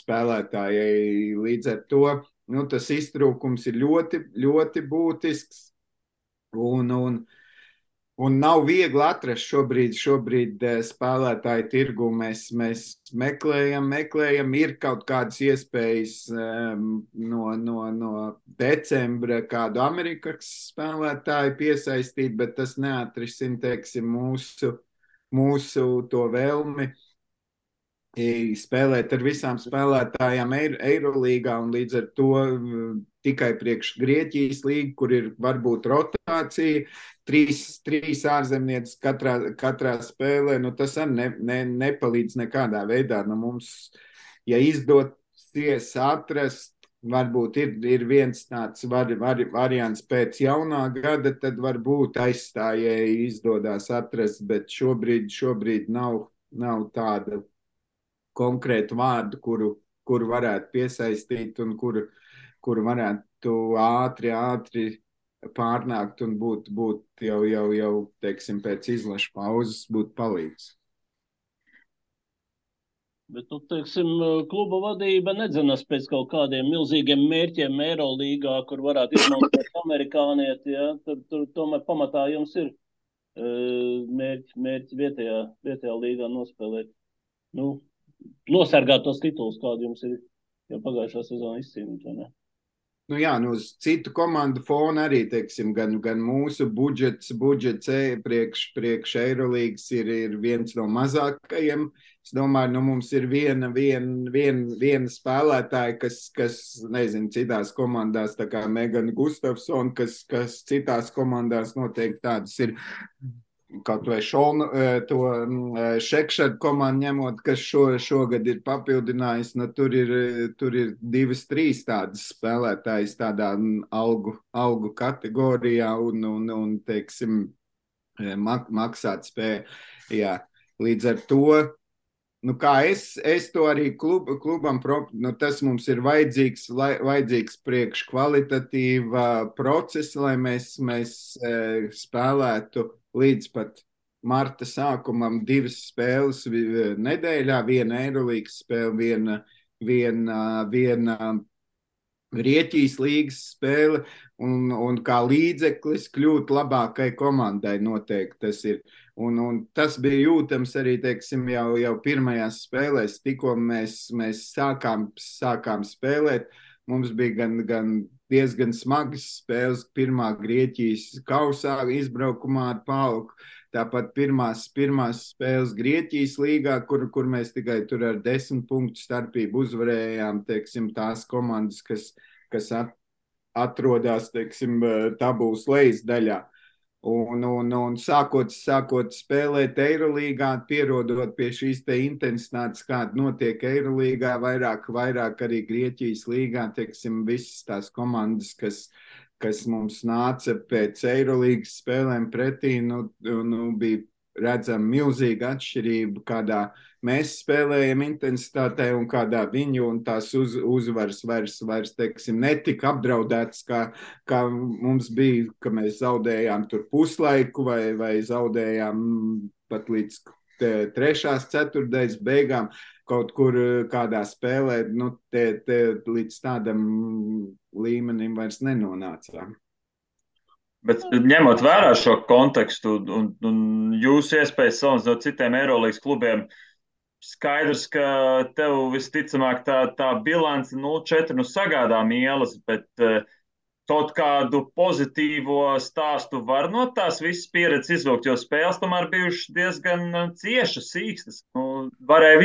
spēlētājai. Līdz ar to tas iztrūkums ir ļoti, ļoti būtisks un nav viegli atrast šobrīd spēlētāju tirgu. Mēs meklējam, ir kaut kādas iespējas no decembra kādu Amerikas spēlētāju piesaistīt, bet tas neatrisina, teiksim, mūsu to vēlmi spēlēt ar visām spēlētājām Eirolīgā, un līdz ar to tikai priekš Grieķijas līga, kur ir varbūt rotācija, 3 ārzemnieces katrā spēlē, tas arī nepalīdz nekādā veidā. Mums, ja izdosies atrast, varbūt ir viens tāds variants pēc jaunā gada, tad varbūt aizstājēji izdodas atrast, bet šobrīd nav tāda konkrētu vārdu, kuru varētu piesaistīt un kuru varētu ātri pārnākt un būt jau teiksim, pēc izlašu pauzes būt palīgs. Bet, teiksim, kluba vadība nedzenas pēc kaut kādiem milzīgiem mērķiem Eirolīgā, kur varētu izmantot amerikānieti, ja? Tur tomēr pamatā jums ir mērķi vietējā līgā nospēlēt. Nosargāt tos titulus, kādi jums ir jau pagājušā sezonā izcīnīti, vai ne? Uz citu komandu fona arī, teiksim, gan mūsu budžets priekš Eirolīgas ir viens no mazākajiem. Es domāju, mums ir viena spēlētāja, kas nezinu, citās komandās, tā kā Megana Gustafsona, kas citās komandās noteikti tādas ir. Kaut vai to Šekšadu komandu ņemot, kas šogad ir papildinājis, tur ir 2-3 tādas spēlētājas tādā algu kategorijā un teiksim, maksāt spēju. Jā. Līdz ar to, kā es to arī klubam, tas mums ir vajadzīgs priekš kvalitatīva procesa, lai mēs spēlētu līdz pat marta sākumam 2 spēles nedēļā, viena Eirolīgas spēle, viena Grieķijas līgas spēle, un kā līdzeklis kļūt labākai komandai noteikti tas ir. Un tas bija jūtams arī, teiksim, jau pirmajās spēlēs, tikko mēs sākām spēlēt. Mums bija gan diezgan smagas spēles pirmā Grieķijas kausā izbraukumā ar PAOK, tāpat pirmās spēles Grieķijas līgā, kur mēs tikai tur ar 10 punktu starpību uzvarējām, teiksim, tās komandas, kas atrodas, teiksim, tabulas lejas daļā. Un sākot spēlēt Eirolīgā, pierodot pie šīs te intensitātes, kāda notiek Eirolīgā, vairāk arī Grieķijas līgā, teiksim, visas tās komandas, kas mums nāca pēc Eirolīgas spēlēm pretī, bija redzama milzīga atšķirība, kādā mēs spēlējam intensitātē un kādā viņu, un tās uzvaras vairs teiksim, netika apdraudētas, kā mums bija, ka mēs zaudējām tur puslaiku vai zaudējām pat līdz trešās ceturtdaļas beigām kaut kur kādā spēlē, līdz tādam līmenim vairs nenonācām. Bet ņemot vērā šo kontekstu un jūsu iespējas salīdzinot citiem Eirolīgas klubiem, skaidrs, ka tev visticamāk tā bilance 0-4 sagādā mielas, bet kaut kādu pozitīvo stāstu var no tās visas pieredzes izvilkt, jo spēles tomēr bijušas diezgan ciešas, sīkstas. Varēja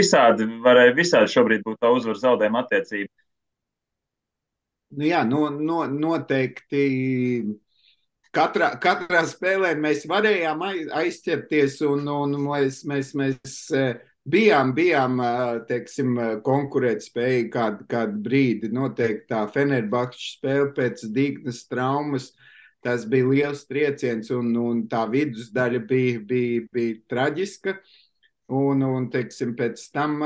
visādi šobrīd būt tā uzvaru zaudējuma attiecība. Jā, noteikti. Katrā spēlē mēs varējām aizķerties un mēs bijām teiksim, konkurētspējīgi kādu brīdi. Noteikti tā Fenerbahča spēle pēc Dignas traumas, tas bija liels trieciens un tā vidusdaļa bija traģiska. Un teiksim, pēc tam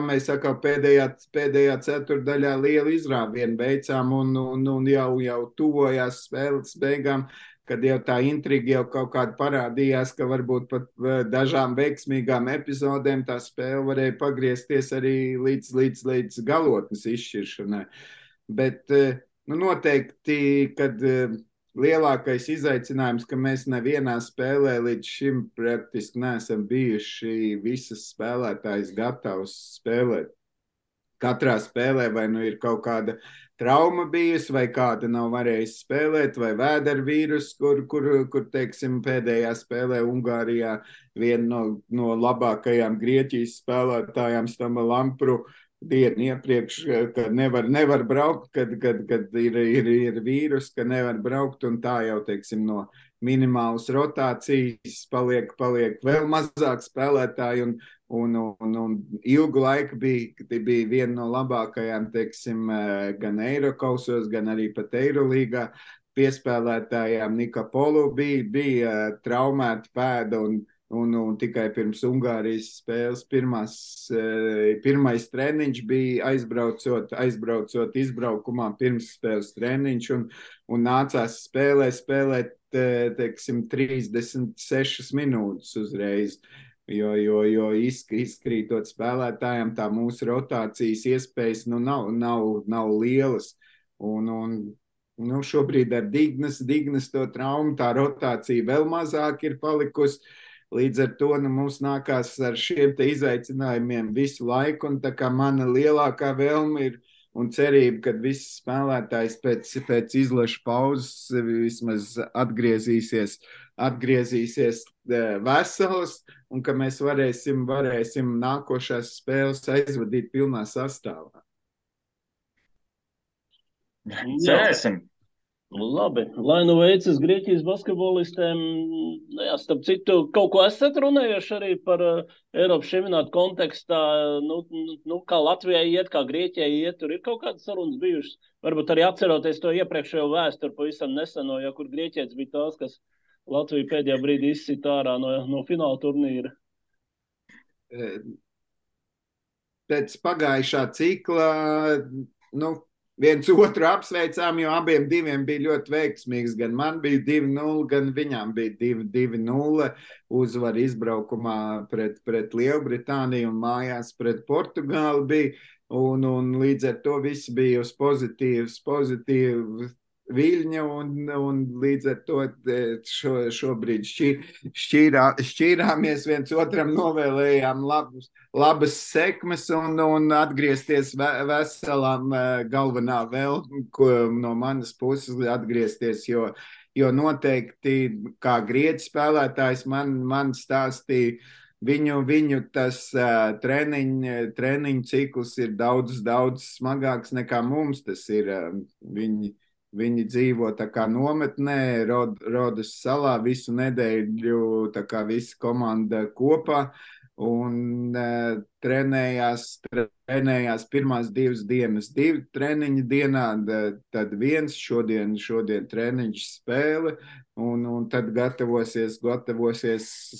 mēs atkal pēdējā ceturdaļā lielu izrāvienu veicām un jau tuvojās spēles beigām, kad jau tā intriga jau kaut kāda parādījās, ka varbūt pat dažām veiksmīgām epizodēm tā spēle varēja pagriezties arī līdz galotnes izšķiršanai. Bet noteikti, kad lielākais izaicinājums, ka mēs nevienā spēlē līdz šim praktiski neesam bijuši visas spēlētājas gatavs spēlēt. Katrā spēlē vai nu ir kaut kāda trauma bijusi, vai kāda nav varējusi spēlēt, vai vēdervīrus, kur teiksim, pēdējā spēlē Ungārijā viena no labākajām Grieķijas spēlētājām Stama Lampru dienu iepriekš, ka nevar braukt, kad ir vīrus, ka nevar braukt, un tā jau, teiksim, no minimālas rotācijas paliek vēl mazāk spēlētāji, un ilgu laiku bija viena no labākajām, teiksim, gan Eirokausos, gan arī pat Eirolīgā piespēlētājām. Nika Polu bija traumēta pēda, un tikai pirms Ungārijas spēles pirmais treniņš bija aizbraucot izbraukumā, pirms spēles treniņš, un nācās spēlēt, teiksim, 36 minūtes uzreiz, jo izkrītot spēlētājiem tā mūsu rotācijas iespējas nav lielas. Šobrīd ar Dignas to traumu tā rotācija vēl mazāk ir palikusi. Līdz ar to mums nākās ar šiem te izaicinājumiem visu laiku, un tā kā mana lielākā vēlme ir un cerība, ka viss spēlētājs pēc izlaša pauzes vismaz atgriezīsies vesels, un ka mēs varēsim nākošās spēles aizvadīt pilnā sastāvā. Cerēsim! Labi, lai nu veicas Grieķijas basketbolistiem. Jā, starp citu, kaut ko esat runājuši arī par Eiropas čempionātu kontekstā, kā Latvijai iet, kā Grieķijai iet, tur ir kaut kādas sarunas bijušas. Varbūt arī atceroties to iepriekšējo vēsturi pavisam neseno, jo kur grieķietis bija tās, kas Latviju pēdējā brīdī izsita ārā no fināla turnīra. Pēc pagājušā cikla, viens otru apsveicām, jo abiem diviem bija ļoti veiksmīgs. Gan man bija 2-0, gan viņām bija 2-0 uzvar izbraukumā pret Lielbritāniju un mājās pret Portugāli bija. Un līdz ar to viss bija uz pozitīvu viļņa, un līdz ar to šobrīd šķīrāmies, viens otram novēlējām labas sekmes un atgriezties veselām galvenā vēl, no manas puses atgriezties, jo noteikti kā grieķu spēlētājs man stāstīja, viņu tas treniņu cikls ir daudz smagāks nekā mums tas ir. Viņi dzīvo tā kā nometnē, Rodas salā visu nedēļu, tā kā visa komanda kopā. Un trenējās pirmās 2 dienas, 2 treniņi dienā, tad viens šodien treniņš spēle, un tad gatavosies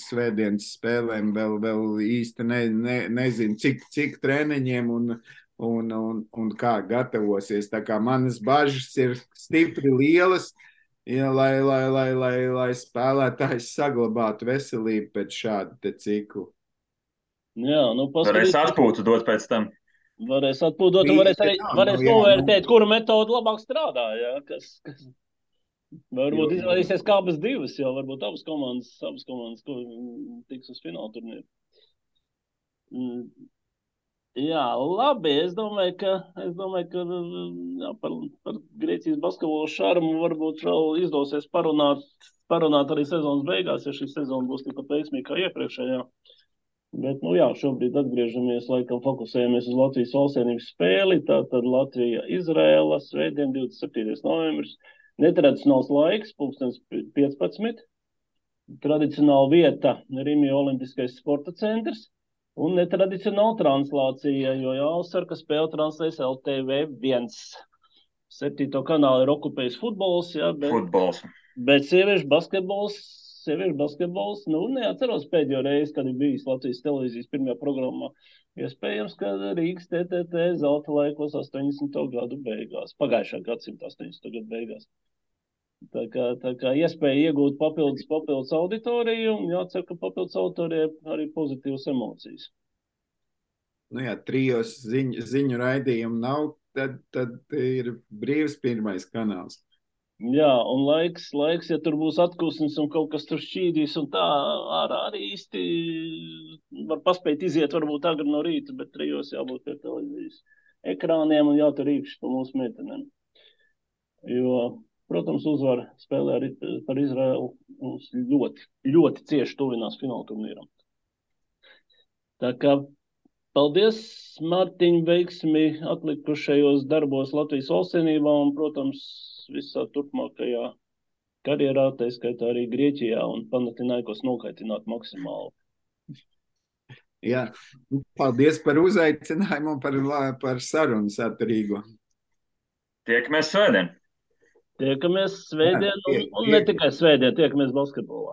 svētdienas spēlēm, vēl īsti nezinu, cik treniņiem un kā gatavosies. Tā kā manas bažas ir stipri lielas, ja, lai spēlētājs saglabātu veselību pēc šāda te ciklu. Jā, nu Varēs atpūtu dot pēc tam. Varēs atpūtot, un varēs novērtēt, kura metode labāk strādā, jā, kas varbūt izvēlēsies kā abas divas, jo varbūt abas komandas tiks uz fināla turnīru. Jā, labi, es domāju, ka jā, par Grieķijas basketbolu šarmu varbūt vēl izdosies parunāt arī sezonas beigās, ja šī sezona būs tikpat veiksmīga kā iepriekšējā. Bet, nu jā, šobrīd atgriežamies, laikam fokusējamies uz Latvijas valstsienības spēli, tātad Latvija-Izrēla, svētdien 27. novembris, netradicionāls laiks, 15. Tradicionāla vieta Rimija Olimpiskais sporta centrs un netradicionāla translācija, jo jāuzsver, ka spēle translēs LTV1. 7. kanālu ir okupējis futbols, jā, bet sieviešu basketbols, nu, neatceros pēdējo reizi, kad ir bijis Latvijas televīzijas pirmajā programmā. Iespējams, ka Rīgas TTT zelta laikos 80. gadu beigās, pagājušā gadsimta 80. gadu beigās. Tā kā iespēja iegūt papildus auditoriju, un jācer, ka papildus auditorija arī pozitīvas emocijas. Nu jā, 3 ziņu raidījumu nav, tad ir brīvs pirmais kanāls. Jā, un laiks, ja tur būs atkusnis un kaut kas tur šķīdīs un tā, arī īsti var paspēt iziet varbūt agri no rīta, bet 3 jābūt pie televīzijas ekrāniem un jātur īkšķi pa mūsu meitenēm. Jo, protams, uzvar spēlē arī par Izraelu mums ļoti, ļoti cieši tuvinās fināla turnīram. Tā kā paldies, Mārtiņ, veiksmi atlikušajos darbos Latvijas valstsienībā un, protams, visā turpmākajā karjerā, tā skaitā arī Grieķijā un Panathinaikos nokaitināt maksimāli. Jā, paldies par uzaicinājumu un par sarunu saturīgo. Tiekamies svētdien. Tiekamies svētdien un ne tikai svētdien, tiekamies basketbolā.